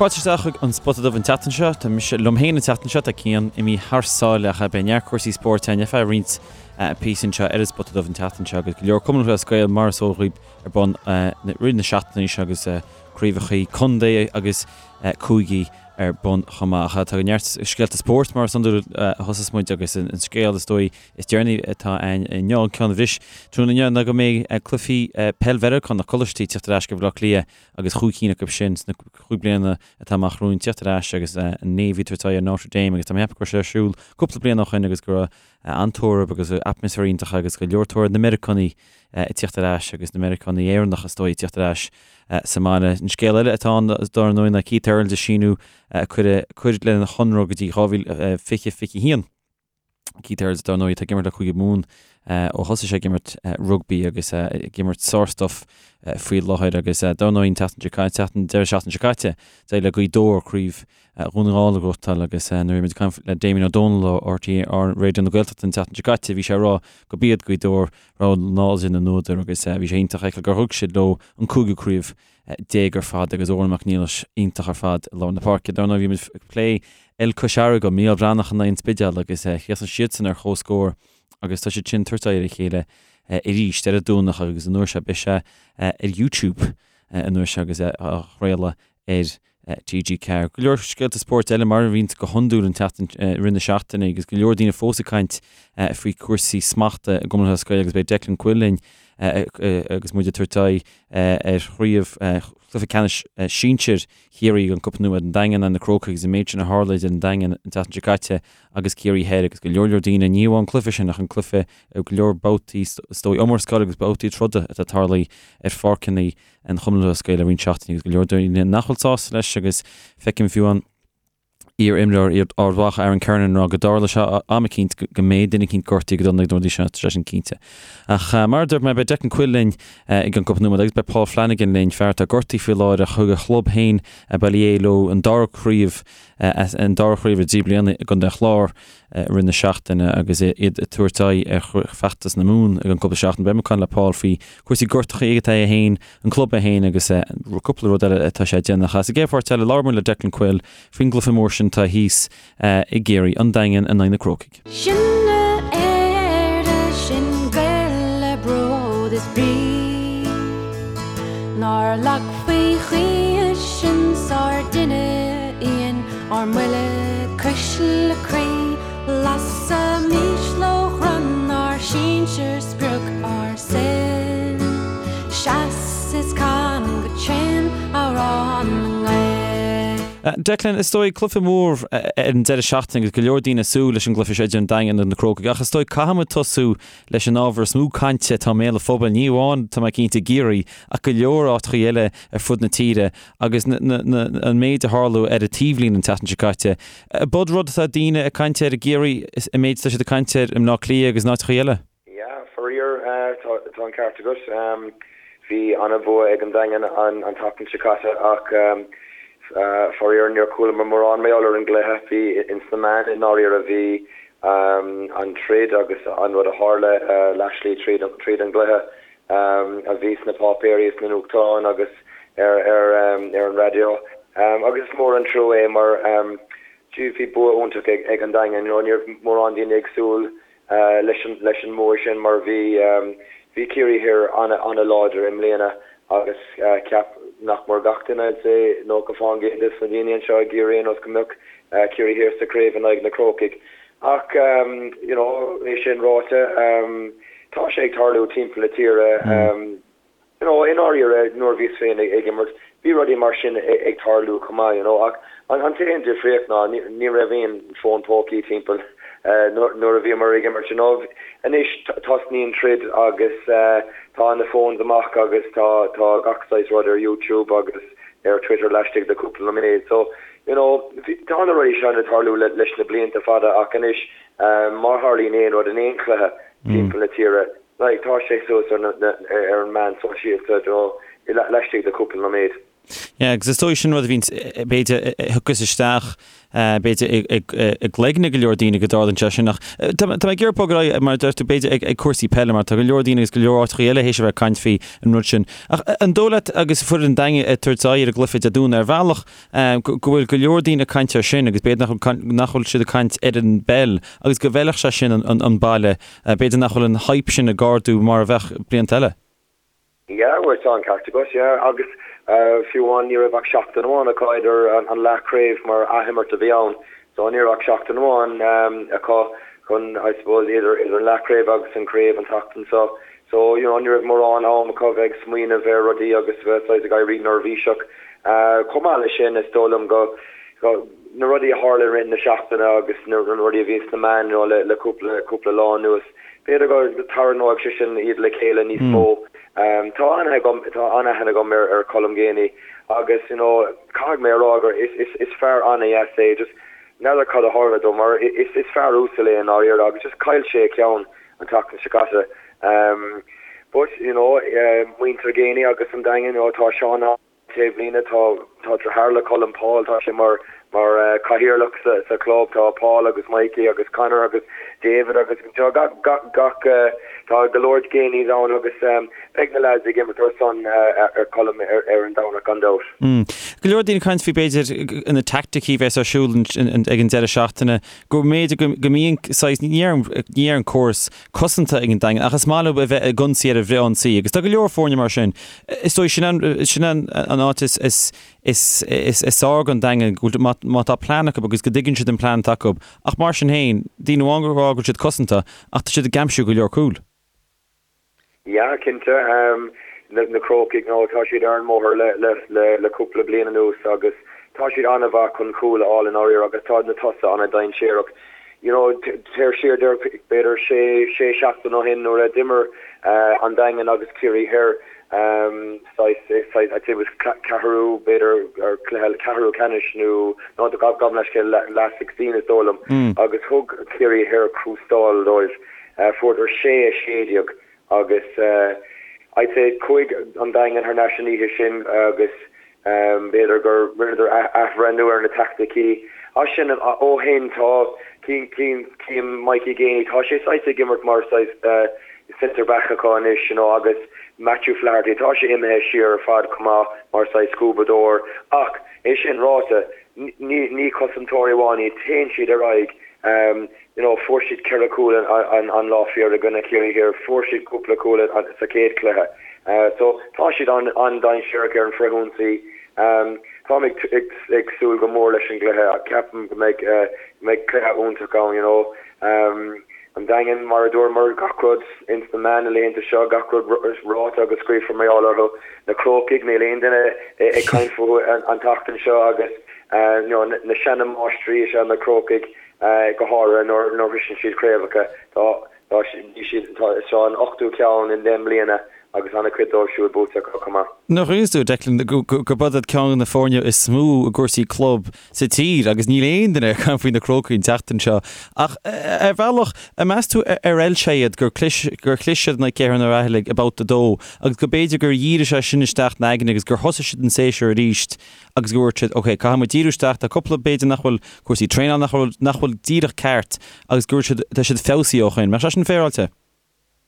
Fáilte isteach chuig an Spota Dubh an tseachtain seo. Tá mise liom féin an tseachtain seo, tá Cian imithe thar sáile ach beidh neart cúrsaí spóirt againn ar feadh roinnt píosa anseo ar an Spota Dubh an tseachtain seo agus go leor Cumann Lúthchleas Gael mar is eol dhaoib ar bun i rith na seachtaine seo agus craobhacha contae agus cúigí ar bun chomh maith. Ach tá neart scéalta spóirt mar is iondúil a thosós muid agus an scéal is dóigh is deireanaí atá ann inniu, an ceann a bhris tráthnóna inniu ná go mbeidh cluichí peil Mheiriceánach coláistí ag teacht ar ais go Baile Átha Cliath agus chúig cinn acu sin sna chúig bliana atá amach romhainn tíocht ar ais agus an Navy ag tabhairt aghaidh ar Notre Dame agus tá mé ag ceapadh go raibh sé ar siúl cúpla bliain ó shoin agus go raibh an-tórramh agus atmaisféar iontach agus go leor tóir ar na Meiriceánaigh ag tíocht ar ais agus na Meiriceánaigh Éireannacha is dóigh ag tíocht ar ais sa mbaile. An scéal eile atá ann dar ndóigh ná Keith Earls ag síniú cur lena chonradh go dtí 2020 21. Keith Earls, dar ndóigh, atá ag imirt le Cúige Mumhan ó thosaigh sé ag imirt rugbaí agus ag imirt sárstuif faoi láthair agus dar ndóigh an tseachtain seo caite, an deireadh seachtaine seo caite, d'éirigh le Gaoth Dobhair craobh Dhún na nGall a ghnóthachtáil agus nuair a bhí muid ag caint le Damien Ó Dónaill ó RTÉ Raidió na Gaeltachta an tseachtain seo caite, bhí sé ag rá gurb iad Gaoth Dobhair rogha láidir na n-údar agus bhí sé iontach a fheiceáil gur thug siad leo an cúigiú craobh déag ar fad agus Odhrán Mac Niallais iontach ar fad i lár na páirce. Dar ndóigh bhí muid ag plé el Cois Fharraige, Mícheál Breathnach in aghaidh an Spidéal agus chríochnaigh siadsan ar chomhscór agus tá siad sin ag tabhairt aghaidh ar a chéile arís ar an Domhnach agus an uair seo beidh sé ar YouTube an uair seo agus á chraoladh ar TG4. Go leor scéalta spóirt eile mar a bhíonns go hiondúil an tseachtain, i rith na seachtaine agus go leor daoine fós ag caint faoi chúrsaí smachta i gCumann Lúthchleas Gael agus beidh Declan Quill linn agus muid ag tabhairt aghaidh ar chraobh chluiche ceannais sinsir Chiarraí an Cupa Nua an Daingean and na Crócaigh agus an méid sin a tharla idir an Daingean an tseachtain seo caite agus Ciarraí Thoir agus go leor leor daoine ní amháin an cluiche sin ach an cluiche go leor babhtaí is dóigh iomrascáil agus babhtaí troda atá tarlaithe ar pháirceanna an Chumann Lúthchleas Gael le roinnt seachtainí agus go leor daoine nach bhfuil sásta leis agus feicim fiú an iar-imreoir Ard Mhacha Aaron Kernan ag rá go dtarlóidh sé am eicínt go mbeidh duine eicínt gortaithe go dona ag na rudaí seo, tá sé sin cinnte. Ach mar a dúirt mé beidh Declan Quill linn i gceann cúpla nóiméad agus beidh Paul Flanagan linn, fear atá gortaithe faoi láthair ach thug a chlub féin Baile Aodha leo an dara craobh an dara craobh i dtrí bliana i gContae an Chláir i rith na seachtaine agus iad ag tabhairt aghaidh ar feachtas na Mumhan i gceann cúpla seachtain. Beidh mé ag caint le Paul faoi chúrsaí gortachaí atá aige féin, an club é féin agus cúpla rud eile atá sé ag déanamh. Sa gcéad pháirt eile, labhróidh muid le Declan Quill faoin gcluiche mór sin atá thíos i gCiarraí, an Daingean in aghaidh na Crócaigh. Sinne Éire, sinn Gaeil le bród is brí, Nár leagfaí choíche sinn sár dtine íon ár mbuille cuisle croí, Lasaimis lóchrann ár sinsir sprioc ár saoil, Seas is can go tréan amhrán na nGael. Declan, is dóigh, cluiche mór ar an deireadh seachtaine agus go leor daoine ag súil leis an gcluiche seo idir an Daingean agus na Crócaigh ach is dóigh caithfidh muid tosú leis an ábhar is mó cainte atá i mbéal an phobail, ní amháin, tá mé cinnte, i gCiarraí ach go leor áiteachaí eile ar fud na tíre agus an méid a tharla ar an taobhlíne an tseachtain seo caite. B'in rud atá daoine ag caint air i gCiarraí, an méid atá siad ag caint air i mBleá Cliath agus in áiteachaí eile. Yeah, faraor, tá an ceart agat. Bhí an-bhua ag an Daingean an tseachtain seo caite ach faraor níor chualamar mórán mar gheall ar an gcluiche. Bhí ins na meáin i ndáiríre, bhí an troid agus an rud a tharla leathshlí tríd an gcluiche. a bhí sna páipéirí is sna nuachtáin agus ar ar an raidió. Agus is mór an trua é mar bhí bua iontach ag an Daingean. You know, ní raibh mórán daoine ag súil leis an leis an mbua sin mar bhí bhí Ciarraí Thoir an-láidir i mbliana agus cheap nach mór gach duine, I'd say 90% des na daoine anseo i gCiarraí ar aon nós go mbeadh Ciarraí Thoir sa chraobh in aghaidh na Crócaigh. Ach, you know, é sin ráite, tá sé ag tarlú timpeall na tíre. You know, i ndáiríre, nuair a bhíos féin ag imirt, bhí rudaí mar sin ag tarlú chomh maith, you know, ach an t-aon difríocht ná ní raibh aon fón pócaí timpeall nuair a bhíomar ag imirt, you know. Anois tosnaíonn troid agus tá na phones amach agus tá tá gach saghas rud ar YouTube agus ar Twitter laistigh de cúpla nóiméad. So, You know, tá na rudaí seo ag tarlú leis na blianta fada ach anois má tharlaíonn aon rud in aon chluiche timpeall na tíre, like, tá sé suas ar an meán sóisialta, you know, laistigh de cúpla nóiméad. Yeah, agus is dóigh sin rud a bhíonns, b'fhéidir, a thiocfas isteach, b'fhéidir, i gcloigne go leor daoine go dtarlaíonn sé sin. Ach tá mé ag iarraidh bogadh ar aghaidh, mar a deir tú, b'fhéidir, ag cúrsaí peile, mar tá go leor daoine agus go leor áiteachaí eile théis a bheith ag caint faoi an rud sin. Ach an dóigh leat, agus foireann an Daingin ag tabhairt aghaidh ar an gcluiche Dé Domhnaigh, ar bhealach, go bhfuil go leor daoine ag caint air sin agus b'fhéidir nach bhfuil, nach bhfuil siad ag caint ar an bpeil agus go bhfeilfeadh sé sin an baile, b'fhéidir nach bhfuil an hype sin ag ardú mar a bheadh blianta eile. Yeah, bhuel tá an ceart agat, yeah, agus fiú amháin ní raibh ach seachtain amháin acu idir an leathchraobh mar athimirt a bhí ann, so ní raibh ach seachtain amháin acu chun, I suppose, idir idir an leathchraobh agus an craobh an tseachtain seo. So, you know, ní raibh mórán am acu bheith ag smaoineamh ar rudaí agus bheith saghas ag éirí neirbhíseach. Chomh maith leis sin, is dóigh liom go, go, na rudaí a tharla i rith na seachtaine agus na rudaí a bhí sna meáin, you know, le le cúpla cúpla lá anuas, B'fhéidir go dtarraingeoidh sé sin iad le chéile níos mó. Tá an-aithne agam, tá an-aithne agam ar ar Colm Geaney agus you know caithfidh mé a rá gur is is is fear an-dheas é, just n'fheadar cad a tharla dó mar is is fear uasal é i ndáiríre agus just chaill sé a cheann an tseachtain seo caite. But you know muintir Geaney agus an Daingean, you know tá Seán Taobhlíne, tá tá deartháir le Colm, Paul, tá sé mar mar chathaoirleach sa sa chlub, tá Paul agus Mikey agus Conor agus David agus tá gach gach gach tá go leor Geaneys ann agus beidh na lads ag imirt ar son ar Colm ar ar an Domhnach gan dabht. Go leor daoine ag caint faoi b'fhéidir na teaicticí a bheas ar siúl ag an deireadh seachtaine go mb'fhéidir go go mbíonn saghas ní déarfainn ní déarfainn córas cosanta ag an Daingean ach is maith leo a bheith ag ionsaí ar an bhfrith-ionsaí agus tá go leor foirne mar sin. Is dóigh sin an sin an an áit is is is is is fearr don Daingean go bhfuil má má tá plean acu agus go dtuigeann siad an plean atá acu ach mar sin féin, daoine amháin ag rá go bhfuil siad cosanta ach tá siad ag aimsiú go leor cúl. Yeah, cinnte. Na na Crócaigh, nó tá siad ar an mbóthar le le le le cúpla bliain anuas agus tá siad an-mhaith chun cúl a fháil i ndáiríre agus tá na tosaithe an-dainséarach. You know, téir siar b'fhéidir sé, sé seachtain ó shin nuair a d'imir an Daingean agus Ciarraí Thoir, saghas, saghas, I'd say it was ceathrú, b'fhéidir, or cluiche ceathrú ceannais nó, no, gabh mo leithscéal, last 16 is dóigh liom, agus thug Ciarraí Thoir crústáil dóibh. Fuaireadar 6, 16 agus I'd say chuaigh an Daingean thar n-ais an oíche sin agus b'fhéidir gur rinneadar athbhreithniú ar na teaicticí. As sin ó shin tá cím Mikey Geaney, tá sé saghas ag imirt mar saghas centre back acu anois you know agus Matthew Flaherty, tá sé imithe siar ar fad chomh maith mar saghas scuabadóir ach é sin ráite ní cosantóirí amháin iad, téann siad ar aghaidh. You know, fuair siad ceithre chúl an lá fíor i gcoinne Ciarraí Thiar, fuair siad cúpla cúl sa chéad chluiche. So, tá siad an-dainséarach ar an bhfrithionsaí. Táim ag súil go mór leis an gcluiche. Ceapaim go mbeidh mbeidh cluiche iontach ann, you know. An Daingean, mar a dúramar, gach rud ins na meáin na laethanta seo, gach rud ráite agus scríofa mar gheall orthu. Na Crócaigh, níl aon duine ag caint fúthu an tseachtain seo agus you know, na seana-mháistrí is ea na Crócaigh. go háirithe nuair a shroiseann siad craobhacha. Tá, tá, bhí siad, tá, seo an ochtú ceann i ndeich mbliana agus an-chuid dóibh siúd buaite acu chomh maith. Nach iontas dúinn, Declan, gurb iad ceann de na foirne is mó i gcúrsaí club sa tír agus níl aon duine ag caint faoi na Crócaigh an tseachtain seo. Ach ar bhealach, an meas tú ar fheil sé iad gur chlis, gur chlis siad in aghaidh Cheathrú Ráthallaigh i mbabhta a dó agus go b'fhéidir gur dhírigh sé sin isteach ina aigne agus gur thosaigh siad an séasúr arís agus go ndúirt siad, ok, caithfidh muid díriú isteach, tá cúpla, b'fhéidir nach bhfuil cúrsaí traenála nach bhfuil, nach bhfuil díreach ceart agus go bhfuil siad, tá siad feabhsaithe ó shin. Mbeadh sé sin féaráilte?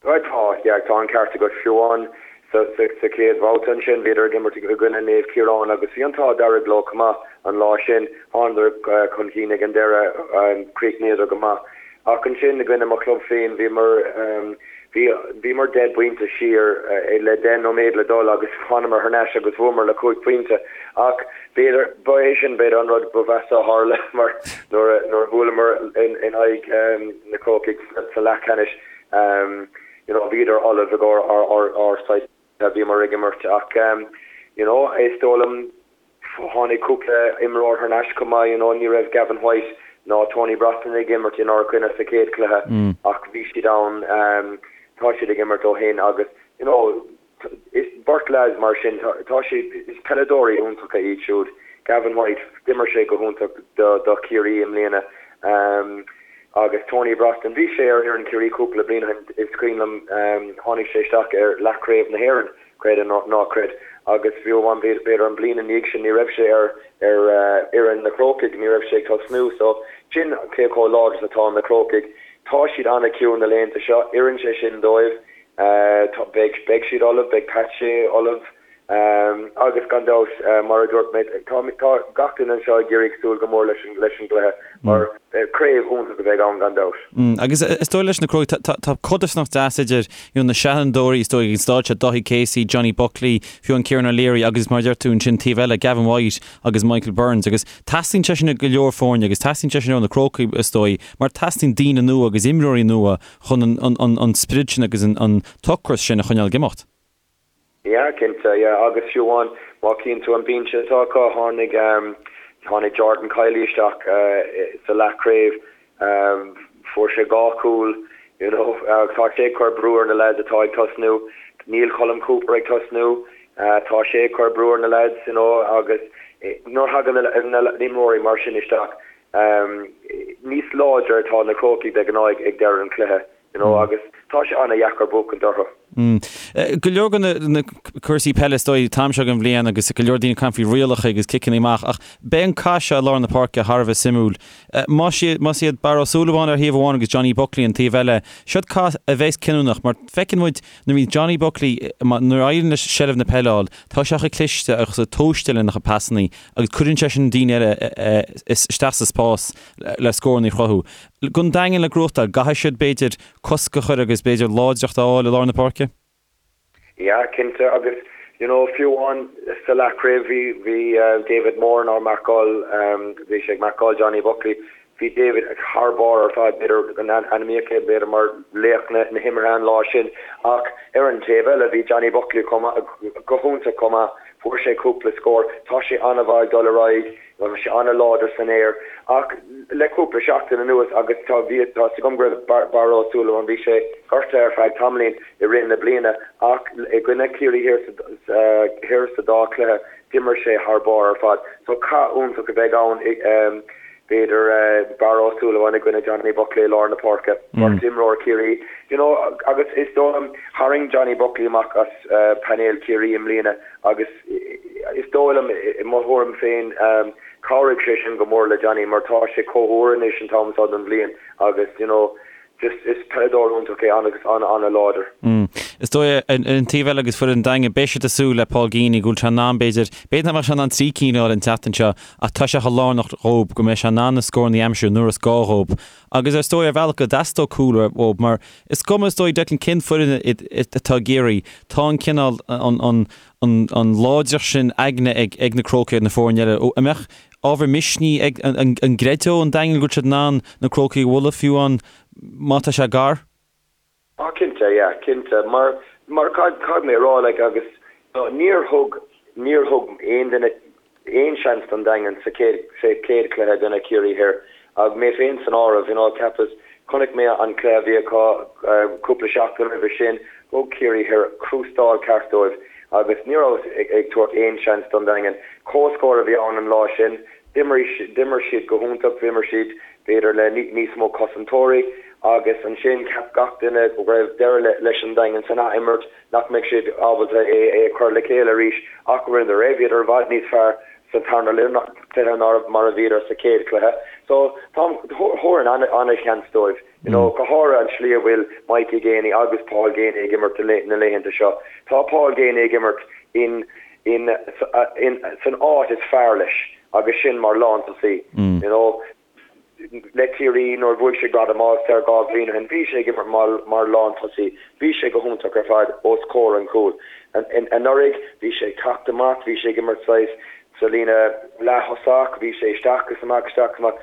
Right, tá, yeah, tá an ceart agat. Fiú amháin sa, sa, sa chéad bhabhta ansin, bhíodar ag imirt i gcoinne Naomh Ciarán agus bhí an t-ádh dearg leo chomh maith an lá sin. Thánadar chun cinn ag an deireadh, chríochnaíodar go maith. Ach ansin i gcoinne mo chlub féin, bhíomar, bhí, bhíomar deich bpointe siar le deich nóiméad le dul agus thánamar thar n-ais agus bhuamar le cúig phointe. Ach b'fhéidir, ba é sin b'fhéidir an rud ba mheasa a tharla mar nuair a, nuair a bhuaileamar in, in aghaidh na Crócaigh sa leathcheannais, you know, bhíodar ullamh i gcomhair ár, ár, ár saghas a bhíomar ag imirt ach you know, is dóigh liom, Tháinig cúpla imreoir thar n-ais chomh maith, you know, ní raibh Gavin White ná Tony Brosnan ag imirt inár gcoinne sa chéad chluiche ach bhí siad ann, tá siad ag imirt ó shin agus, you know, is beirt leaids mar sin, tá siad, is peileadóirí iontacha iad siúd. Gavin White, d'imir sé go hiontach do Chiarraí i mbliana agus Tony Brosnan, bhí sé ar fhoireann Chiarraí cúpla bliain ó shin, is cuimhin liom, tháinig sé isteach ar leathchraobh na hÉireann. Creid é nó ná creid. Agus fiú amháin b'fhéidir an bliain ina dhiaidh sin ní raibh sé ar ar fhoireann na Crócaigh, ní raibh sé ag tosnú. So sin cé chomh láidir is atá na Crócaigh. Tá siad an-chiúin na laethanta seo, oireann sé sin dóibh. Beidh beidh siad ullamh, beidh Pat Shea ullamh. Agus gan dabht, mar a dúirt mé, tá gach duine anseo i gCiarraí ag súil go mór leis an gcluiche mar craobh iontach a bheidh ann gan dabht. Agus is dóigh leis na Crócaigh, tá codarsnacht deas idir you know na seanfhondúirí is dóigh ag an stáid seo, Dáithí Casey, Johnny Buckley, fiú an Kieran O'Leary agus mar a deir tú ansin taobh eile, Gavin White agus Michael Burns agus teastaíonn sé sin ó go leor foirne agus teastaíonn sé sin ó na Crócaigh is dóigh mar teastaíonn daoine nua agus imreoirí nua chun an sprid sin agus an t-ocras sin a choinneáil ag imeacht. Yeah, cinnte, yeah, agus fiú amháin má chíonn tú an binse atá acu, tháinig, tháinig Jordan Kiely isteach sa leathchraobh, fuair sé 2 chúl, you know, tá sé ag cur brú ar na lads atá ag tosnú, níl Colm Cooper ag tosnú, tá sé ag cur brú ar na lads, you know, agus nuair a thagann na imreoirí mar sin isteach, níos láidre atá na Crócaigh de ghnáth ag deireadh an chluiche. You know, agus tá sé an-dheacair buachaint orthu. Go leor de na cúrsaí peile is dóigh an t-am seo den bhliain agus go leor daoine ag caint faoi rialacha agus ciceanna amach ach beidh an cath seo i lár na páirce thar a bheith suimiúil. Más iad Barra Ó Súilleabháin ar thaobh amháin agus Johnny Buckley an taobh eile, siod cath a bheas cinniúnach mar feiceann muid nuair a bhíonn Johnny Buckley, nuair a éiríonn leis seilbh na peile a fháil, tá sé chomh cliste agus chomh tomhaiste lena chuid pasannaí agus cuireann sé sin daoine eile isteach sa spás le scóranna a chruthú. Don Daingean le gnóthachtáil, an gcaithfidh siad, b'fhéidir, cosc a chur agus, b'fhéidir, láidreacht a fháil i lár na páirce? Yeah, cinnte. Agus, you know, fiú amháin sa leathchraobh bhí, bhí David Moran á marcáil, bhí sé ag marcáil Johnny Buckley. Bhí David thar barr ar fad, b'fhéidir go n-ainmníodh é, b'fhéidir, mar laoch na himeartha an lá sin. Ach ar an taobh eile, bhí Johnny Buckley chomh maith, go hiontach chomh maith. Fuair sé cúpla scór. Tá sé an-mhaith ag dul ar aghaidh. Bhí sé an-láidir san aer ach le cúpla seachtain anuas agus tá, bhí, tá 'fhios agam go raibh Barra Ó Súilleabháin, bhí sé gortaithe ar feadh tamaillín i rith na bliana ach i gcoinne Ciarraí Thiar sa, Thoir sa dá chluiche d'imir sé thar barr ar fad. So cath iontach a bheidh ann b'fhéidir Barra Ó Súilleabháin i gcoinne Johnny Buckley i lár na páirce, beirt imreoir Chiarraí, you know agus is dóigh liom tharraing Johnny Buckley amach as painéal Chiarraí i mbliana Agus is dóigh liom, i mo thuairim féin, chabhraigh sé sin go mór le Johnny mar tá sé chomh húr anois an t-am seo den bhliain agus you know just is peileadóir iontach é agus an-an-láidir. Is dóigh, ar an taobh eile agus foireann an Daingin, beidh siad ag súil le Paul Geaney go bhfuil sé in ann, b'fhéidir, b'fhéidir nach mbeadh sé in ann trí cinn a fháil an tseachtain seo ach tá sé chomh lárnach dhóib go mbeidh sé in ann na scóranna a aimsiú nuair is gá dhóib. Agus ar ndóigh ar bhealach go dteastódh cúl uathub mar is cuma is dóigh Declan cén foireann atá i gCiarraí, tá an cineál, an an láidreacht sin aigne ag ag na Crócaigh ar na foirne eile. An mbeadh ábhar misnigh ag an gcreideodh an Daingean go bhfuil siad in ann na Crócaigh a bhualadh fiú amháin má tá sé gar? Ah cinnte, yeah, cinnte. Mar, mar caithfidh mé a rá, like, agus níor thug, níor thug aon duine aon seans don Daingean sa chéad, sa chéad chluiche i gcoinne Ciarraí Thoir, agus mé féin san áireamh, you know, cheapas, chonaic mé an cluiche a bhí acu cúpla seachtain roimhe sin, thug Ciarraí Thoir crústáil ceart dóibh agus ní rabhas ag, ag tabhairt aon seans don Daingean. Comhscór a bhí ann an lá sin, d'imir, d'imir siad go hiontach, d'imir siad b'fhéidir le níos mó cosantóirí agus ansin cheap gach duine go raibh deireadh leis an Daingean san ath-imirt, nach mbeadh siad ábalta é a chur le chéile arís ach rinneadar é. Bhíodar i bhfad níos fearr sa tarna cluiche ná mar a bhíodar sa chéad chluiche. So thabharfainn an-sheans dóibh, you know, go háirithe an tslí a bhfuil Mikey Geaney agus Paul Geaney ag imirt na laethanta seo. Tá Paul Geaney ag imirt in in san áit is fearr leis agus sin mar lántosaí. You know, le Ciarraí nuair a bhuaigh sé gradam All Star 2 bhliain ó shin, bhí sé ag imirt mar mar lántosaí. Bhí sé go hiontach ar fad os comhair an chúil. Anuraidh bhí sé ag teacht amach, bhí sé ag imirt saghas sa líne leath-thosach, bhí sé isteach is amach, isteach is amach.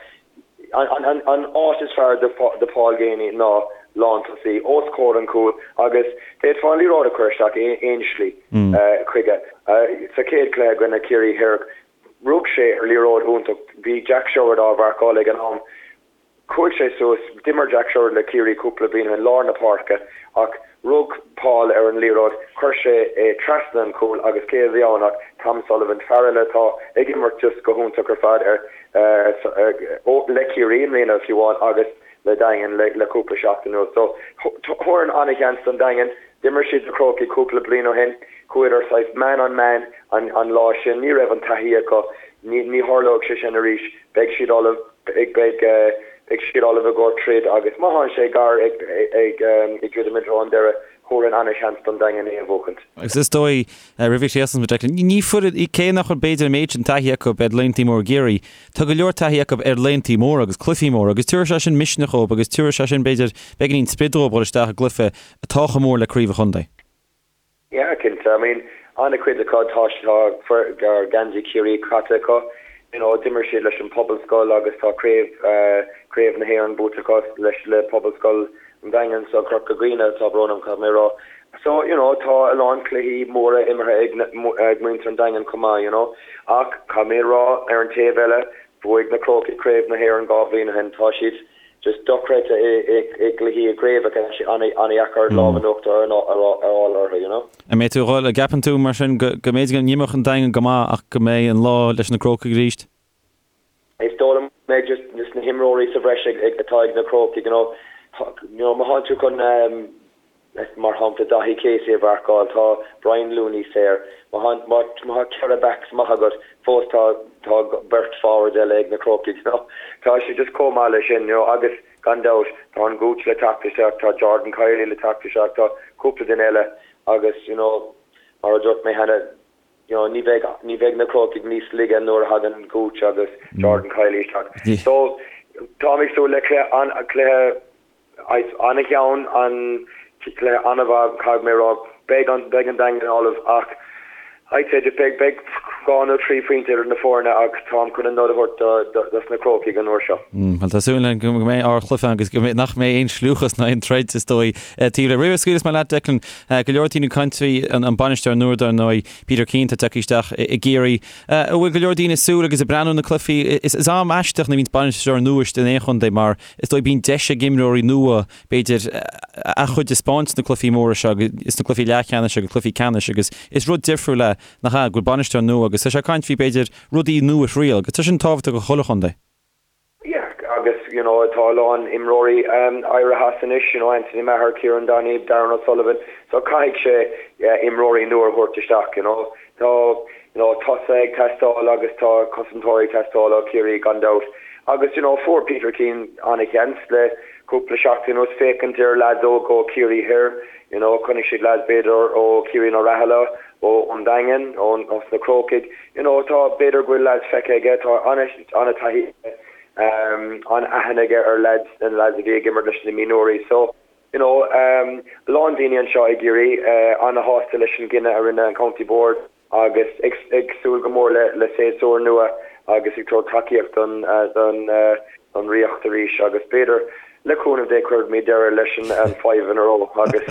An áit is fearr do Paul Geaney ná lántosaí, os comhair an chúil agus d'fhéadfá an liathróid a chur isteach aon slí chuige. Sa chéad chluiche i gcoinne Ciarraí Thoir, rug sé ar liathróid iontach. Bhí Jack Sherwood á mharcáil ag an am. Chuaigh sé suas, d'imir Jack Sherwood le Ciarraí cúpla bliain ó shin, lár na páirce, ach rug Paul ar an liathróid, chuir sé é trasna an chúil agus cé a bhí ann ach Tom Sullivan, fear eile atá ag imirt just go hiontach ar fad ar le Ciarraí i mbliana fiú amháin agus le Daingean le cúpla seachtain anuas. So, thabharfainn an-sheans don Daingean. D'imir siad na Crócaigh cúpla bliain ó shin. Chuadar saghas man on man an an lá sin. Ní raibh an taithí acu. Ní ní tharlóidh sé sin arís. Beidh siad ullamh. Beidh beidh beidh siad ullamh i gcomhair troid agus má thánn sé gar ag ag ag druidim i dtreo an deireadh, thabharfainn ana-sheans don Daingean é a bhuachaint. Agus is dóigh, roimh a chríochnós muid, Declan, ní foireann, cé nach bhfuil b'fhéidir an méid sin taithí acu ar laethanta móra i gCiarraí, tá go leor taithí acu ar laethanta móra agus cluichí móra agus tabharfaidh sé sin misneach dhóibh agus tabharfaidh sé sin, b'fhéidir, beagáinín sprid dhóibh dhul isteach i gcluiche atá chomh mór le craobh an chontae. Yeah, cinnte. I mean, an-chuid acu, tá tá geansaí Chiarraí caite acu. You know, d'imir siad leis an Pobalscoil agus tá craobh craobh na hÉireann buaite acu leis le Pobalscoil an Daingin, so Corca Dhuibhne, tá brón orm, caithfidh mé a rá. So, you know, tá a lán cluichí móra imeartha ag ag muintir an Daingin chomh maith, you know. Ach caithfidh mé a rá, ar an taobh eile, bhuaigh na Crócaigh craobh na hÉireann 2 bhliain ó shin. Tá siad just dochreidte i gcluichí i gcraobhacha, tá sé an-dheacair lámh in uachtar a fháil orthu, you know. An mbeidh tú a dhul, an gceapann tú mar sin go go mb'fhéidir go n-imreoidh an Daingean go maith ach go mbeidh an lá leis na Crócaigh arís? Is dóigh liom go mbeidh just just na himreoirí sa bhreis ag atá ag na Crócaigh, you know. You know, má thánn tú chun Mar shampla, Daithí Casey a mharcáil, tá Brian Looney saor. Má tá 4 backs maith agat, fós tá tá beirt forwards eile ag na Crócaigh, you know. Tá sé just chomh maith leis sin, you know, agus gan dabht, tá an Gooch le teacht isteach, tá Jordan Kiely le teacht isteach, tá cúpla duine eile agus, you know, mar a dúirt mé cheana, you know, ní bheidh ní bheidh na Crócaigh níos laige nuair a thagann Gooch agus Jordan Kiely isteach. So, táim ag súil le cluiche an cluiche An-cheann, an cluiche an-mhaith, caithfidh mé a rá. Beidh an beidh an Daingean ullamh ach I'd say just beidh beidh 2 nó 3 phointe idir na foirne ach táim chun an nod a thabhairt do dos na Crócaigh an uair seo. Bhuel tá súil againn go mbeidh ardchluiche ann agus go mbeidh nach mbeidh aon scliúchas ná aon troid is dóigh taobh leis. Roimh a scaoilfeas mé leat Declan, go leor daoine ag caint faoi an bainisteoir nua dar ndóigh, Peter Keane atá tagtha isteach i gCiarraí. An bhfuil go leor daoine ag súil agus ag breathnú na cluichí? Is am aisteach nuair a bhíonns bainisteoir nua istigh in aon chontae mar Is dóigh bíonn deis ag imreoirí nua, b'fhéidir, a gcuid a 'speáint sna cluichí móra seo, sna cluichí leathcheannais agus cluichí ceannais agus is rud difriúil é, nach ea, go bhfuil bainisteoir nua agus tá sé ag caint faoi, b'fhéidir, rudaí nua a thriail agus tá sin tábhachtach do chuile chontae. Yeah, agus you know tá a lán imreoirí éirithe as anois, you know Anthony Maher, Kieran Donaghy, Darran O'Sullivan, so caithfidh sé imreoirí nua a thabhairt isteach, you know. Tá you know tosaithe ag teastáil agus tá cosantóirí ag teastáil ó Chiarraí gan dabht. Agus you know fuair Peter Keane an-sheans le cúpla seachtain anuas féachaint ar lads óga ó Chiarraí Thoir, you know chonaic siad lads b'fhéidir ó Chiarraí na Raghallaigh, ó an Daingean, ó na Crócaigh, you know tá b'fhéidir go bhfuil lads feicthe aige, tá an-taithí aige, an-aithne aige ar lads, na lads a bhí ag imirt leis na mionúirí. So You know, a lán daoine anseo i gCiarraí ana-shásta leis an gcinneadh a rinne an County Board agus ag súil go mór le séasúr nua agus ag tabhairt tacaíocht don don Ríocht arís agus b'fhéidir le cúnamh Dé cuirfimid deireadh leis an five in a row agus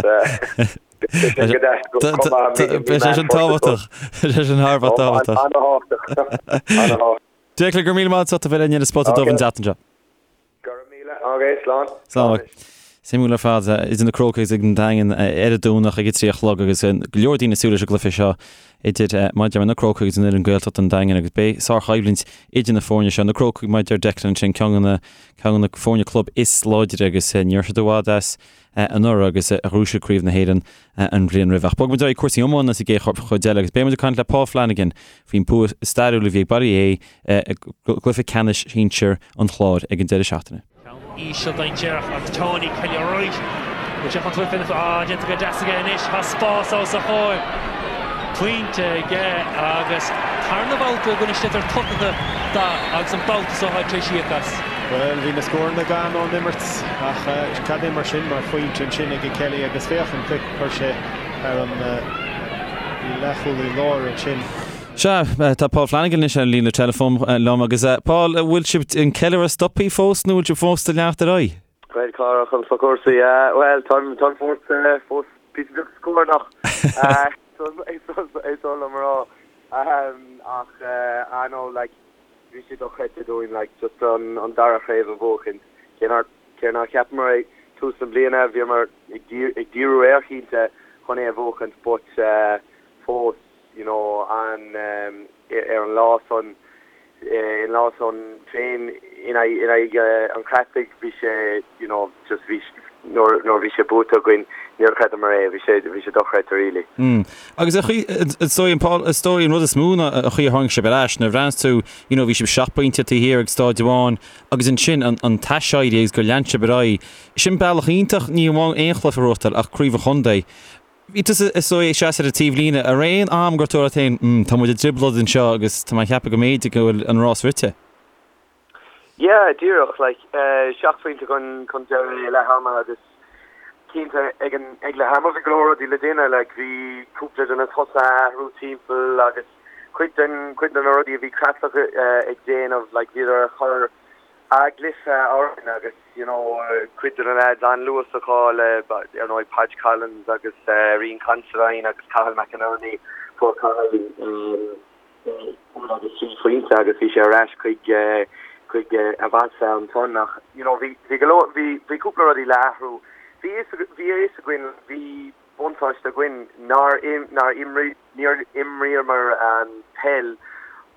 beidh sé sin go deas chomh maith Beidh sé sin tábhachtach. Beidh sé sin thar a bheith tábhachtach. Ana-thábhachtach. Ana-thábhachtach. Declan, go raibh míle maith agat as ucht a bheith linn ar an Spota Dubh an tseachtain seo. Go raibh míle agat, slán. Slán. Suimiúil ar fad, idir na Crócaigh agus an Daingean ar an Domhnach ag a 3 a chlog agus go leor daoine ag súil leis an gcluiche seo idir mar a deir mé na Crócaigh agus an fhoireann Gaeltachta an Daingean agus beidh sárchoimhlint idir na foirne seo. Na Crócaigh mar a deir Declan ansin ceann de na ceann de na foirne club is láidre agus ní raibh siad i bhfad as anuraidh agus a ghnóthaigh siad Craobh na hÉireann an bhliain roimhe. Ach bogfaidh muid ar aghaidh cúrsaí iomána sa gcéad chuid eile agus beidh muid ag caint le Paul Flanagan faoin bua stairiúil a bhí ag Baile Átha Í i gcluiche ceannais sinsir an Chláir ag an deireadh seachtaine. Ceann íseal dainséarach agus Tony Kelly Wright. Bhfuil sé chun tabhairt faoina Ah, déanta go deas aige anois. Tá spás os a chomhair. Pointe aige agus tarna babhta i gcoinne sliotar tugtha dó agus an babhta seo tá tar éis íoc as. Bhuel, bhí na scóranna gann ón imirt ach cad é mar sin mar phointe ansin ag Kelly agus féach an cic a chuir sé thar an leathchúlaí láir ansin. Sea, tá Paul Flanagan anois ar an líne teileafóin liom agus Paul, an bhfuil sibh an ceiliúradh stoptha fós nó bhfuil sibh fós ag leanacht ar aghaidh? Bhuel, Cárthach, conas tá cúrsaí? Bhuel, táim táim fós fós píosa beag scornach is oth liom a rá. Ach I know like bhí sé dochreidte dúinn like just an an dara chraobh a bhuachaint. Cé nár cé nár cheapamar ag tús na bliana bhíomar ag ag díriú air cinnte chun é a bhuachaint but fós you know an ar an lá san. an lá san féin in aghaidh an Chreatlaigh bhí sé you know just bhí nuair nuair bhí sé buaite againn níor chreideamar é, bhí sé bhí sé dochreidte really. Mm. Agus a chaoi is dóigh an Paul is dóigh an rud is mó ná an chaoi a tháinig sibh ar ais nuair a bhreathnaíos tú you know bhí sibh seacht bpointe taobh thiar ag staid amháin agus ansin an an t-aiséirí agus gur lean sibh ar aghaidh. Sin bealach iontach ní amháin aon chluiche a ghnóthachtáil ach craobh an chontae. Bhí tusa is dóigh ag seasamh ar an taobhlíne an raibh aon am gur dúirt tú leat féin mm tá muid i dtrioblóid anseo agus tá mé ag ceapadh go mb'fhéidir go bhfuil an rás rite. Yeah, díreach, like, seacht phointe chun chun deiridh i leath ama agus cinnte ag an ag leath ama bhí go leor rudaí le déanamh, like, bhí cúpla de na tosaithe a athrú timpeall agus cuid den cuid de na rudaí a bhí Creatlach ag déanamh, like, bhíodar ag cur a gcluiche orainn agus, you know, cuid de na lads an-luasacha le, ar ndóigh, Podge Collins agus Rian Considine agus Cathal McInerney, fuair Cathal, cúl agus trí phointe agus bhí sé ar ais chuig chuig a mheas ansan ach you know bhí bhí go leor bhí bhí cúpla rudaí le athrú. Bhí fhios bhí a fhios againn bhí buntáiste againn nár nár imrí níor imríomar an peil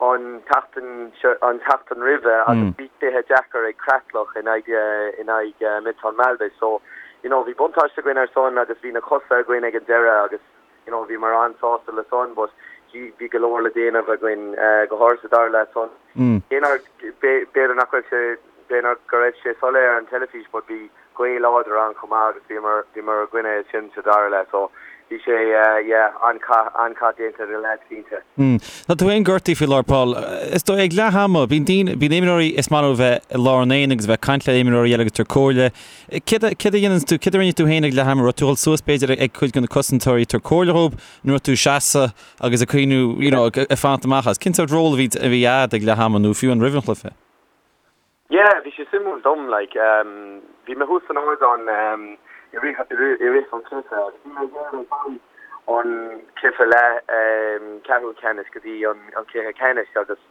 an tseachtain seo an tseachtain roimhe agus bhí cluiche deacair ag Creatlach in aghaidh in aghaidh Milltown Malbay so you know bhí buntáiste againn ar son agus bhí na cosa againn ag an deireadh agus you know bhíomar an-sásta le san but bhí bhí go leor le déanamh againn go háirithe sa dara leath san. Cé nár b'fhéidir nach raibh sé b'fhéidir go raibh sé soiléir ar an teilifís but bhí gaoth láidir ann chomh maith agus bhíomar bhíomar i gcoinne sin sa dara leath so bhí sé yeah an-chath an-chath déanta ag na lads cinnte. Tá tú féin gortaithe faoi láthair Paul. Is dóigh ag leath ama bíonn daoine bíonn imreoirí is maith leo bheith i lár an aonaigh agus bheith ag caint le imreoirí eile agus tabhairt comhairle. Céard a dhéanann tú, céard a rinne tú féin ag leath ama? Raibh tú ag dul suas b'fhéidir ag cuid de na cosantóirí ag tabhairt comhairle dhóibh nó raibh tú ag seasamh agus ag cuimhniú you know ag fanacht amach as? Cén sórt ról a bhí a bhí a'd ag leath ama nó fiú an roimh an chluiche? Yeah, bhí sé suimiúil dom like bhí mé thuas san ardán i rith i rith an chluiche agus bhí mé ag iarraidh dul ón cluiche leath ceathrú ceannais go dtí an cluiche ceannais agus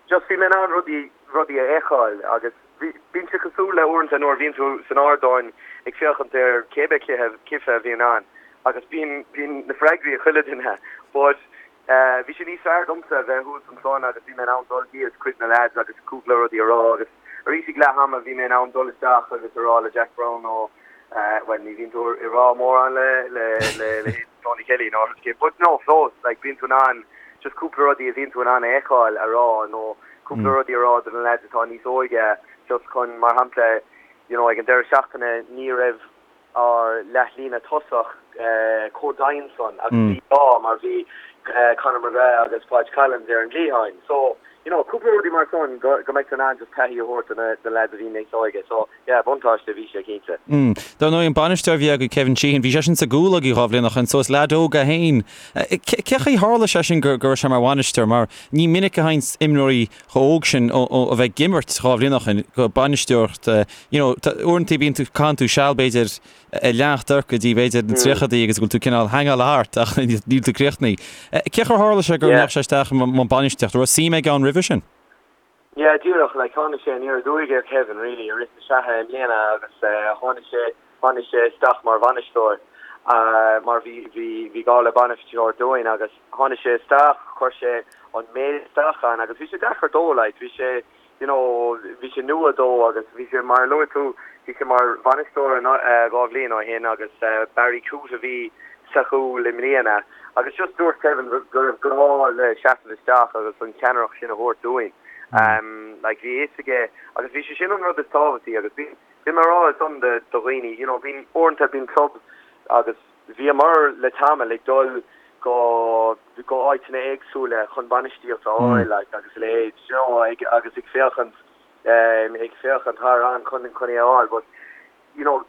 just bhí mé in ann rudaí rudaí a fheiceáil agus Bíonn sé cosúil le uaireanta nuair a bhíonn tú san ardán ag féachaint ar cébé cluiche cluiche a bhíonn ann agus bíonn bíonn na freagraí ag chuile duine but bhí sé níos fearr domsa a bheith thuas ansan agus bhí mé in ann dul thíos chuig na lads agus cúpla rudaí a rá agus arís ag leath ama bhí mé in ann dul isteach agus a rá le Jack Browne nó bhuel ní bhíonn tú ag rá mórán le le le le Tony Kelly nó but no fós like bíonn tú in ann just cúpla rudaí a bhíonn tú in ann a fheiceáil a rá nó cúpla rudaí a rá do na lads atá níos óige just chun, mar shampla, you know ag an deireadh seachtaine ní raibh ár leathlíne tosach chomh daingean san agus bhí gá mar bhí Conor McGrath agus Podge Collins ar an gcliatháin. So, you know, cúpla rudaí mar san go go mbeidh tú in ann just taithí a thabhairt do na do na lads a bhí níos óige. So, yeah, buntáiste a bhí sé cinnte. Mm. Dar ndóigh an bainisteoir a bhí agaibh Kevin Sheehan, bhí seisean sa gcúl agaibh dhá bhliain ó shin, so is leaid óg é féin. Cé chaoi tharla sé sin go go raibh sé mar bhainisteoir mar ní minic a thagann imreoirí chomh óg sin ó a bheith ag imirt dhá bhliain ó shin go bainisteoireacht you know uaireanta bíonn tú caitheann tú seal b'fhéidir ag leanacht ort go dtí b'fhéidir na tríochadaí agus go bhfuil tú cineál hangáil thart ach níl tú críochnaithe. Cé chaoi tharla sé go ndeachaigh sé isteach i mbun bainistíochta? Raibh suim aige ann roimhe sin? Yeah, díreach, like, tháinig sé aniar aduaidh ar Kevin, really, i rith na sraithe i mbliana agus tháinig sé, tháinig sé isteach mar bhainisteoir mar bhí, bhí, bhí gá le bainisteoir dúinn agus tháinig sé isteach, chuir sé an méid isteach ann agus bhí sé deacair dó, like, bhí sé, you know, bhí sé nua dó agus bhí sé, mar a luaigh tú, bhí sé mar bhainisteoir dhá bhliain ó shin agus Barry Coote a bhí sa chúl i mbliana. Agus just dúirt Kevin go raibh gá le seasamh isteach agus an cheannaireacht sin a thabhairt dúinn. Like bhí a fhios aige agus bhí sé sin an rud is tábhachtaí agus bhí bhí mé ag rá san do do dhaoine you know bíonn uaireanta bíonn clubs agus bhíomar le tamall ag dul go go áiteanna éagsúla chun bainistíocht a fháil like agus a leithéid you know ag agus ag féachaint ag féachaint thar an chun chun é a fháil but you know,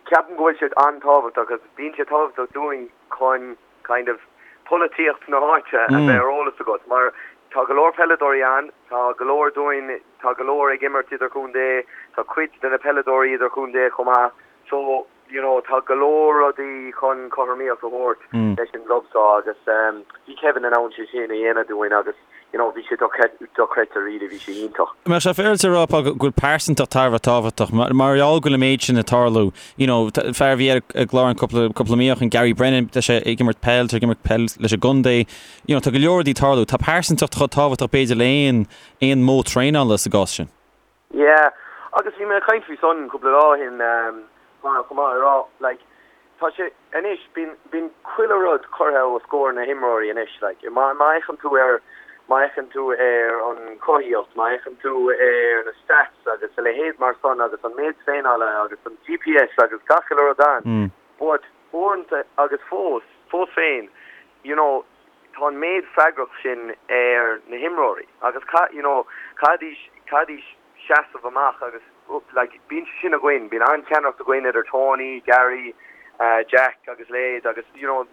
ceapaim go bhfuil sé an-tábhachtach agus bíonn sé tábhachtach dúinn chun kind of polaitíocht na háite a bheith ar eolas agat mar tá go leor peileadóirí ann, tá go leor dúinn, tá go leor ag imirt idirchontae, tá cuid de na peileadóirí idirchontae chomh maith so, you know, tá go leor rudaí chun cothromaíocht a thabhairt leis an gclub seo agus bhí Kevin in ann sé sin a dhéanamh dúinn agus. you know, bhí sé dochreidte really, bhí sé iontach. An mbeadh sé féaráilte a rá, Paul, go bhfuil pearsantacht thar a bheith tábhachtach, mar gheall go bhfuil an méid sin ag tarlú, you know, fear a bhí ar an gclár an cúpla, cúpla mí ó shin, Gary Brennan, tá sé ag imirt peil, tá sé ag imirt peil leis an gcontae, you know, tá go leor rudaí ag tarlú, tá pearsantacht chomh tábhachtach b'fhéidir le aon, aon modh traenála sa gcás sin. Yeah, agus bhí mé ag caint faoi san cúpla lá ó shin, chomh maith, ag rá, like, tá sé, anois, bíonn, bíonn chuile rud curtha os comhair na himreoirí anois, like, má, má fhéachann tú ar, má fhéachann tú ar an chothaíocht, má fhéachann tú ar na stats agus a leithéid mar san agus an méid traenála agus an GPS agus gach uile rud ann, but uaireanta agus fós, fós féin, you know, tá an méid freagracht sin ar na himreoirí agus you know caithfidís caithfidís seasamh amach agus like bíonn sé sin againn, bíonn an-cheannaireacht againn idir Tony, Gary, Jack agus leithéid agus you know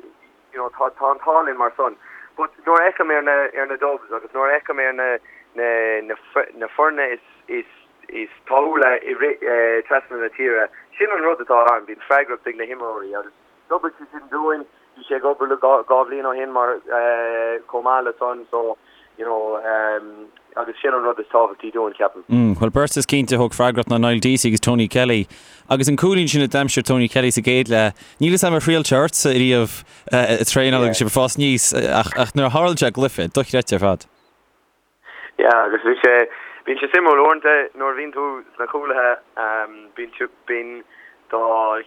you know tá tá an t-ádh linn mar san. But nuair a fheicim ar na ar na Dubs agus nuair a fheicim ar na na na na foirne is is is tapúla i rith trasna na tíre, sin an rud atá ann, bíonn freagracht ag na himreoirí agus D'oibrigh sé sin dúinn. Bhí sé ag obair le 2 bhliain ó shin mar chomh maith le san so you know agus sin an rud is tábhachtaí dúinn ceapaim. Bhuel beirt is cinnte a thóg freagracht ná Niall Deasy agus Tony Kelly. Agus an cúilín sin a d'aimsigh Tony Kelly sa gcéad leath, níl 'fhios a'm ar thriail sé ortsa ariamh ag traenáil agus sibh ag fás aníos ach nuair a tharla sé i gcluiche, dochreidte ar fad. Yeah agus bhí sé, bíonn sé suimiúil uaireanta nuair a bhíonn tú sna cúlaithe bíonn tú, bíonn do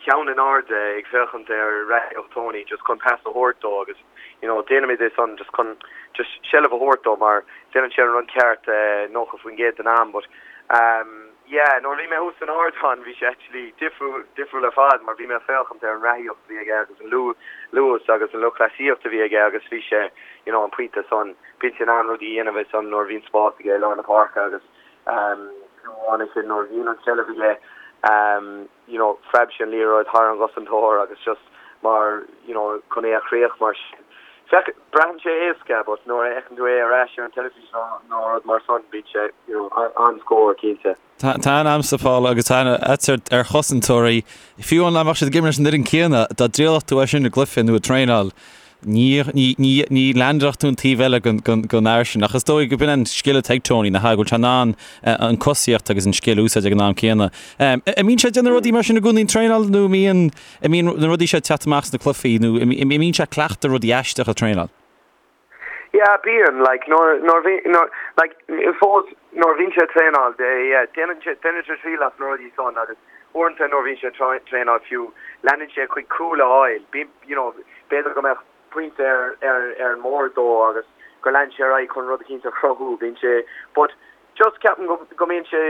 cheann in airde ag féachaint ar reathaíocht Tony just chun pas a thabhairt dó agus you know déanaimid é san just chun just seilbh a thabhairt dó mar déanann sé an rud ceart 90% den am but yeah nuair a bhí mé thuas san ardán bhí sé actually difriúil, difriúil ar fad mar bhí mé ag féachaint ar an reathaíocht a bhí aige agus an luas agus an lúthchleasaíocht a bhí aige agus bhí sé you know an pointe san Bíonn sé in ann rudaí a dhéanamh ansan nuair a bhíonn spás aige i lár na páirce agus fiú amháin ansin nuair a bhíonn an tseilbh aige you know phreab sé an liathróid thar an gcosantóir agus just mar you know chun é a chríoch mar sin. Féach, braitheann sé éasca but nuair a fheiceann tú é ar ais ar an teilifís nó rud mar san bíonn sé you know an-scór cinnte. Tá aithne a'msa, Paul, agus tá aithne a'dsa ar chosantóirí. Fiú amháin dá mbeadh siad ag imirt leis an fhoireann céanna, dá dtriailfeadh tú é sin i gcluiche nó ag traenáil, ní, ní, ní, ní leaindeálfadh tú an taobh eile den, den, den fhear sin. Ach is dóigh go b'in an scil atá ag Tony, nach ea, go bhfuil sé in ann an cosaíocht agus an scil a úsáid ag an am céanna. An mbíonn sé ag déanamh rudaí mar sin i gcónaí ag traenáil nó an mbíonn, an mbíonn na rudaí seo ag teacht amach sna cluichí nó an mbíonn sé ag cleachtadh rudaí aisteacha ag traenáil? Yeah, bíonn, like, nuair, nuair bhí, nuair, like, fós, nuair a bhíonn sé ag traenáil, yeah, déanann sé, déanann sé triail as na rudaí san agus uaireanta nuair a bhíonn sé ag traenáil fiú, leanann sé chuig cúl a fháil, bíonn, you know, b'fhéidir go mbeadh pointe ar, ar, ar an mbord dó agus gur lean sé ar aghaidh chun rud eicínt a chruthú, bíonn sé, but just ceapaim go, go mbíonn sé,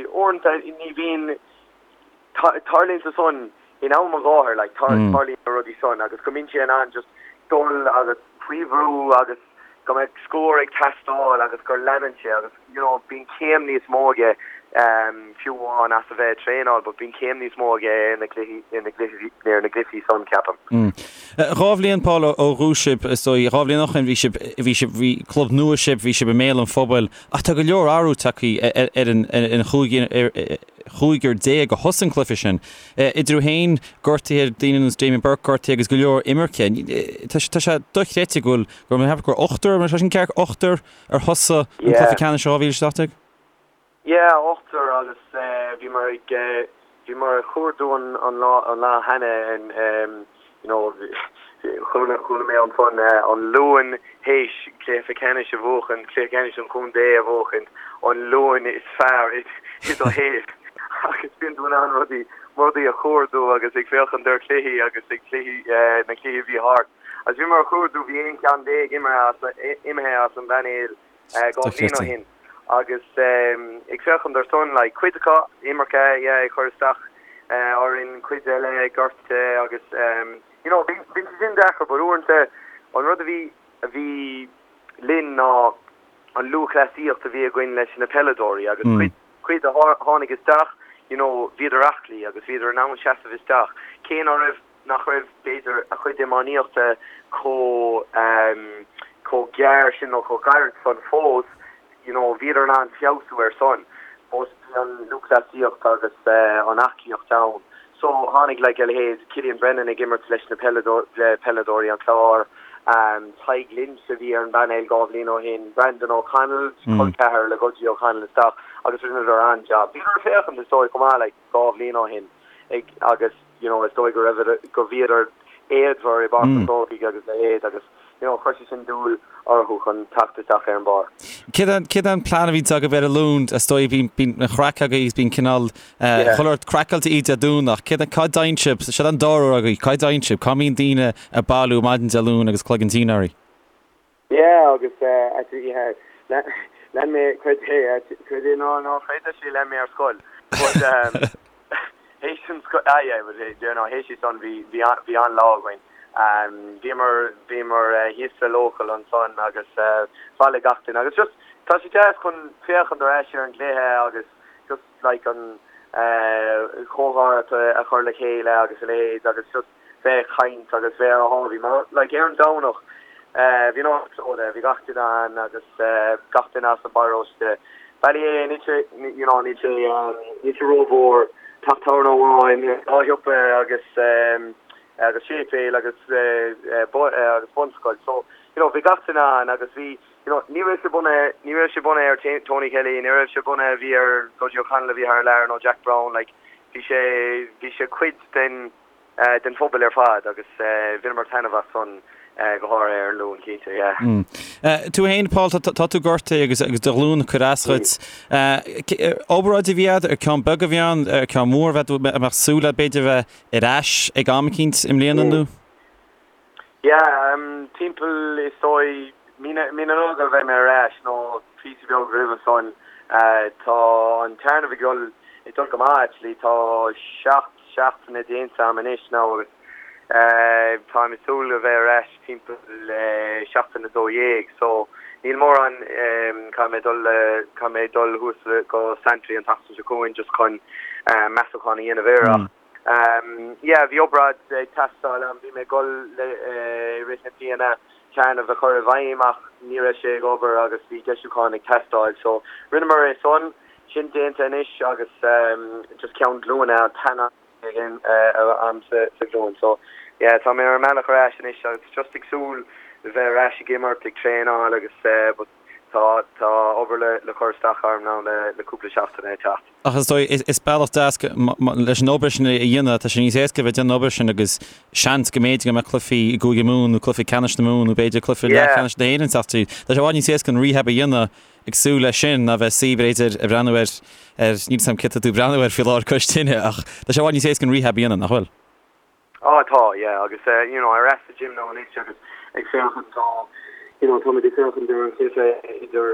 uaireanta ní bhíonn, tarlaíonn sé san in am an gháthair, like, tarlaíonn na rudaí san agus go mbíonn sé in ann just dul agus faoi bhrú agus go mbeadh scór ag teastáil agus gur leanann sé agus, you know, bíonn céim níos mó aige fiú amháin as a bheith ag traenáil but bíonn céim níos mó aige ar na cluichí, ar na gcluichí, ar na gcluichí san, ceapaim. 2 bhliain, Paul, ó dhúisigh sibh, is dóigh, 2 bhliain ó shin bhí sibh, bhí sibh, bhí club nua sibh, bhí sibh i mbéal an phobail ach tá go leor athrú tagtha ar an, ar an chúigear, 15 a thosaigh an cluiche sin. Idir thú féin, gortaithe, daoine ar nós Damien Burke gortaithe agus go leor imirce. Tá sé dochreidte go bhfuil, go raibh mé gur ochtar, mar sin ceart, ochtar ar thosaigh an cluiche ceannais 2017? Yeah, ochtar agus bhíomar ag, bhíomar ag cuardú an lá, an lá cheana you know, chuala, chuala mé ansan an Luan théis cluiche ceannais a bhuachan, cluiche ceannais an chontae a bhuachan, an Luan is fearr i do shaol agus bíonn tú in ann rudaí, rudaí a chuardú agus ag féachaint ar chluichí agus ag cluichí, na cluichí a bhí thart. Agus bhíomar ag cuardú, bhí 11 ceann imithe as, imithe as an bpainéal 2 bhliain ó shin agus ag féachaint ar san, like, cuid acu imirce, yeah, ag cur isteach orainn, cuid eile gortaithe agus you know, bhí sé sin deacair but uaireanta an rud a bhí, a bhí linn ná an lúthchleasaíocht a bhí againn leis na peileadóirí agus cuid, cuid a tháinig isteach, you know, bhíodar aclaí agus bhíodar in ann seasamh isteach, cé ná raibh nach raibh, b'fhéidir, a chuid iománaíochta chomh chomh gearr sin nó chomh gairid san fós, you know, bhíodar in ann feabhsú ar san. But bhí an lúthchleasaíocht agus an aclaíocht ann. So tháinig like a leithéid Cillian Brennan ag imirt leis na peileadóirí an Chláir. Tadhg Lynch a bhí ar an bpainéal 2 bhliain ó shin, Brandon O'Connell, col ceathar le Gudgie O'Connell isteach agus rinneadar an-jab. Bhíodar ag féachaint is dóigh chomh maith like 2 bhliain ó shin ag agus you know is dóigh go raibh go bhíodar éadmhar i bPáirc an Chrócaigh agus a leithéid agus you know chuir sé sin dúil orthu chun teacht isteach ar an bpáirc. Céard é an plean a bhíonns agaibh ar an Luan? Is dóigh bíonn bíonn an chraic agaibh agus bíonn cineál chuile shórt craiceáilte Dé Domhnach. Céard cá dtéann sibh? Seo an dara huair agaibh. Cá dtéann sibh? Cá mbíonn daoine ag bailiú maidin Dé Luain agus cloigeann tinn oraibh? Yeah agus actually yeah lean mé creid é creid é nó ná creid actually lean mé ar scoil but théis an scoil ah yeah but you know théis san bhí bhí bhí an-lá againn bhíomar bhíomar thíos sa local ansan agus bhailigh gach duine agus just tá sé deas chun féachaint ar ais ar an gcluiche agus just like an chomhrá a chur le chéile agus a leithéid agus just bheith ag caint agus bheith ar a sháimhí mar like ar an Domhnach bhí an áit plódaithe, bhí gach duine ann agus gach duine as an bparóiste. Ballyea níl sé you know níl sé níl sé rómhór, teach tábhairne amháin, dhá shiopa agus agus séipéal agus agus bunscoil so you know bhí gach duine ann agus bhí you know ní raibh sé bunaithe ní raibh sé bunaithe ar Tony Kelly, ní raibh sé bunaithe bhí ar Gudgie O'Connell a bhí thar lear nó Jack Browne like bhí sé bhí sé cuid den den phobal ar fad agus bhaineamar taitneamh as san go háirithe ar an Luan, cinnte, yeah. Tú féin, Paul, tá tú gortaithe agus agus do ghlúin ag cur as dhuit. Obráid a bhí agat, ar ceann beag a bhí ann, ar ceann mór a bheith, a mbeadh súil agat b'fhéidir bheith ar ais ag am eicínt i mbliana nó? Yeah, timpeall is dóigh mí na Nollag a bheidh mé ar ais nó píosa beag roimhe san. Tá an téarnamh ag dul ag dul go maith actually, tá 7 seachtaine déanta agam anois now agus táim ag súil a bheith ar ais timpeall seachtain 12 so níl mórán caithfidh mé dul caithfidh mé dul thuas go Santry an tseachtain seo chugainn just chun measúchán a dhéanamh air ach Yeah, bhí obráid ag teastáil a'm, bhí mé ag dul le i rith na bliana téarnamh a chur i bhfeidhm ach ní raibh sé ag obair agus bhí deisiúchán ag teastáil so rinneamar é san, sin déanta anois agus just ceann glúine an t-aon a'm sa ghlúin so yeah tá mé ar an mbealach ar ais anois agus just ag súil le bheith ar ais ag imirt, ag traenáil agus but tá tá obair le le cur isteach orm now le le cúpla seachtain ag teacht. Ach is dóigh, is bealach deas leis an obair sin a dhéanamh, tá sé níos éasca a bheith ag déanamh an obair sin agus seans go mb'fhéidir go mbeadh cluichí i gCúige Mumhan nó cluichí ceannais na Mumhan nó b'fhéidir cluiche leathcheannais na hÉireann teacht tríd. Tá sé i bhfad níos éasca an rehab a dhéanamh ag súil leis sin ná bheith suí b'fhéidir ag breathnú ar, ar, níl 'fhios a'm céard tá tú ag breathnú air faoi láthair cois tine ach tá sé i bhfad níos éasca an rehab a dhéanamh, nach bhfuil? Á tá, yeah, agus you know ar ais sa gym now anois agus ag féachaint tá you know táimid ag féachaint ar an chluiche idir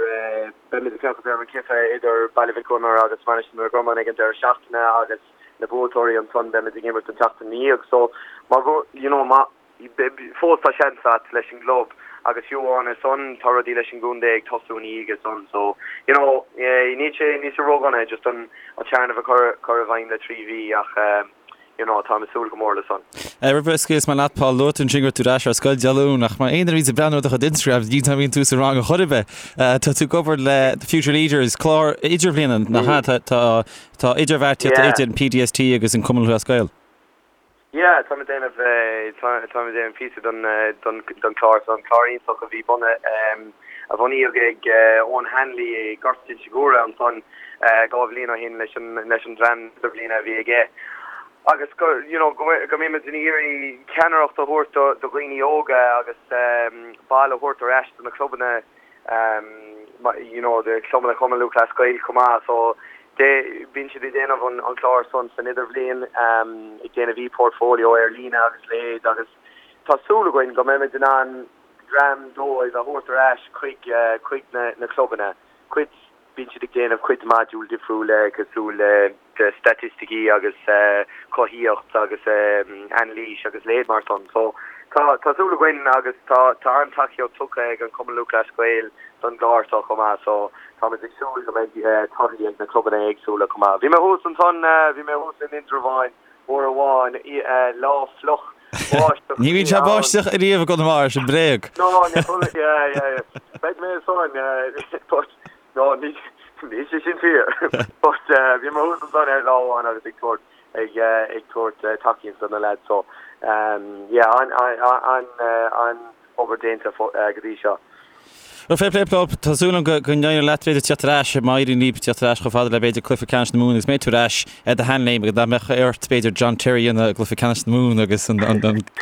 beimid ag féachaint ar an chluiche idir Baile Mhic Gonair agus Mainistir na Gorman ag an deireadh seachtaine agus na buaiteoirí ansan beimid ag imirt an tseachtain ina dhiaidh so má you know má fós tá seans a't leis an gclub agus fiú amháin ar son tá rudaí leis an gcontae ag tosú ina dhiaidh san so you know níl sé níl sé ródhona just an an téarnamh a chur chur i bhfeidhm le 3 mhí ach you know, táim ag súil go mór le san. Roimh a scaoilfeas mé leat, Paul, luaigh tú ansin go raibh tú ar ais ar scoil Dé Luain, ach mar aon duine a bhíonns ag breathnú ar do chuid Instagram, ní bhíonn tú sa rang ar chor ar bith. Tá tú ag obair le The Future Leaders, clár idirbhliana, nach ea? Tá tá idirbheartaíocht idir an PDST agus an Cumann Lúthchleas Gael. Yeah, táim ag déanamh táim ag déanamh píosa don don don chlár san, clár iontach a bhí bunaithe a bunaíodh ag Eoin Hanley i nGort Inse Guaire ansan 2 bhliain ó shin leis an leis an dream idirbhliana a bhí aige agus go you know go go mbímid ag iarraidh ceannaireacht a thabhairt do do dhaoine óga agus bail a thabhairt ar ais do na clubanna you know do chlubanna Chumann Lúthchleas Gael chomh maith so de bíonn siad ag déanamh an an clár san san idirbhliain ag déanamh e-portfolio ar líne agus leithéid agus tá súil againn go mbeimid in ann dream dóibh a thabhairt ar ais chuig chuig na na clubanna cuid Bíonn siad ag déanamh cuid modúl difriúil cosúil le staitisticí agus cothaíocht agus anailís agus leithéid mar san. So tá tá súil againn agus tá tá an-tacaíocht tugtha ag an Cumann Lúthchleas Gael don gclár seo chomh maith so táimid ag súil go mbeidh torthaí ag na clubanna éagsúla chomh maith. Bhí mé thuas ansan, bhí mé thuas in Indreabhán uair amháin, lá fliuch báisteach Ní bhíonn sé báisteach ariamh i gConamara, sin bréag. No, ní chuala, yeah, yeah, yeah. Beidh mé ansan, but, no, ní, níl sé sin fíor. But, bhí mé thuas ansan ar lá amháin agus ag tabhairt, ag, ag tabhairt tacaíocht do na lads, so, yeah, an, an, an, an. obair déanta go dtí seo. Bhuel, fair play Paul, tá súil agam go n-éireoidh leat b'fhéidir tíocht ar ais, má éiríonn libh tíocht ar ais chomh fada le b'fhéidir cluiche ceannais na Mumhan agus mbeidh tú ar ais ar do sheanléim agus nach mbeadh ort b'fhéidir John Terry a dhéanamh i gcluiche ceannais na Mumhan agus an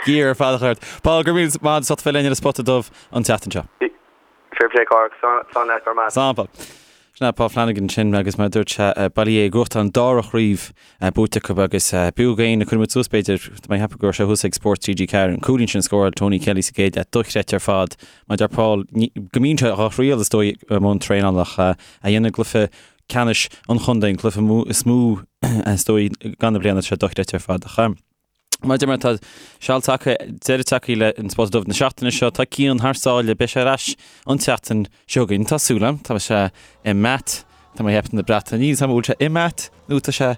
gear ar fad a chur ort. Paul, go raibh míle maith agat as ucht bheith linn ar an Spota Dubh an tseachtain seo. Fair play Cárthach, slán leat, go raibh maith. Slán Paul. Sin é Paul Flanagan ansin agus mar a dúirt sé, Baile Uí Aodha ag gnóthachtáil an dara chraobh buaite acu agus b'fhiú d'éinne, cuirfidh muid suas b'fhéidir, tá mé ag ceapadh go raibh sé thuas ag Spórt TG4, an cúilín sin a scóráil Tony Kelly sa gcéad leath, dochreidte ar fad. Mar a deir Paul, go mbíonn sé dhá thriail is dóigh i mbun traenála ach a dhéanamh i gcluiche ceannais an chontae, an cluiche is mó is dóigh gan na bliana, tá sé dochreidte ar fad. Ach. Mar a deir mé, tá seal tagtha, deireadh tagtha le an Spota Dubh na seachtaine seo. Tá Cian thar sáile, beidh sé ar ais an tseachtain seo chugainn. Tá súil agam, tá sé i mBath, tá mé ag ceapadh na Breataine. Níl a fhios agam an bhfuil sé i mBath nó tá sé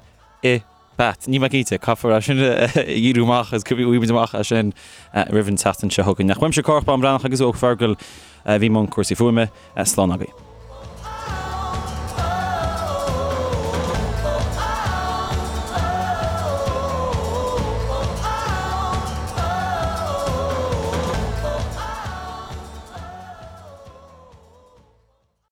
i Bath. Níl mé cinnte, caithfear é sin a fhíorú amach agus gheobhaidh muid amach é sin roimh an tseachtain seo chugainn. Ach uaimse Cárthach Bán Breathnach agus ó Fergal a bhí i mbun cúrsaí fuaime, slán agaibh.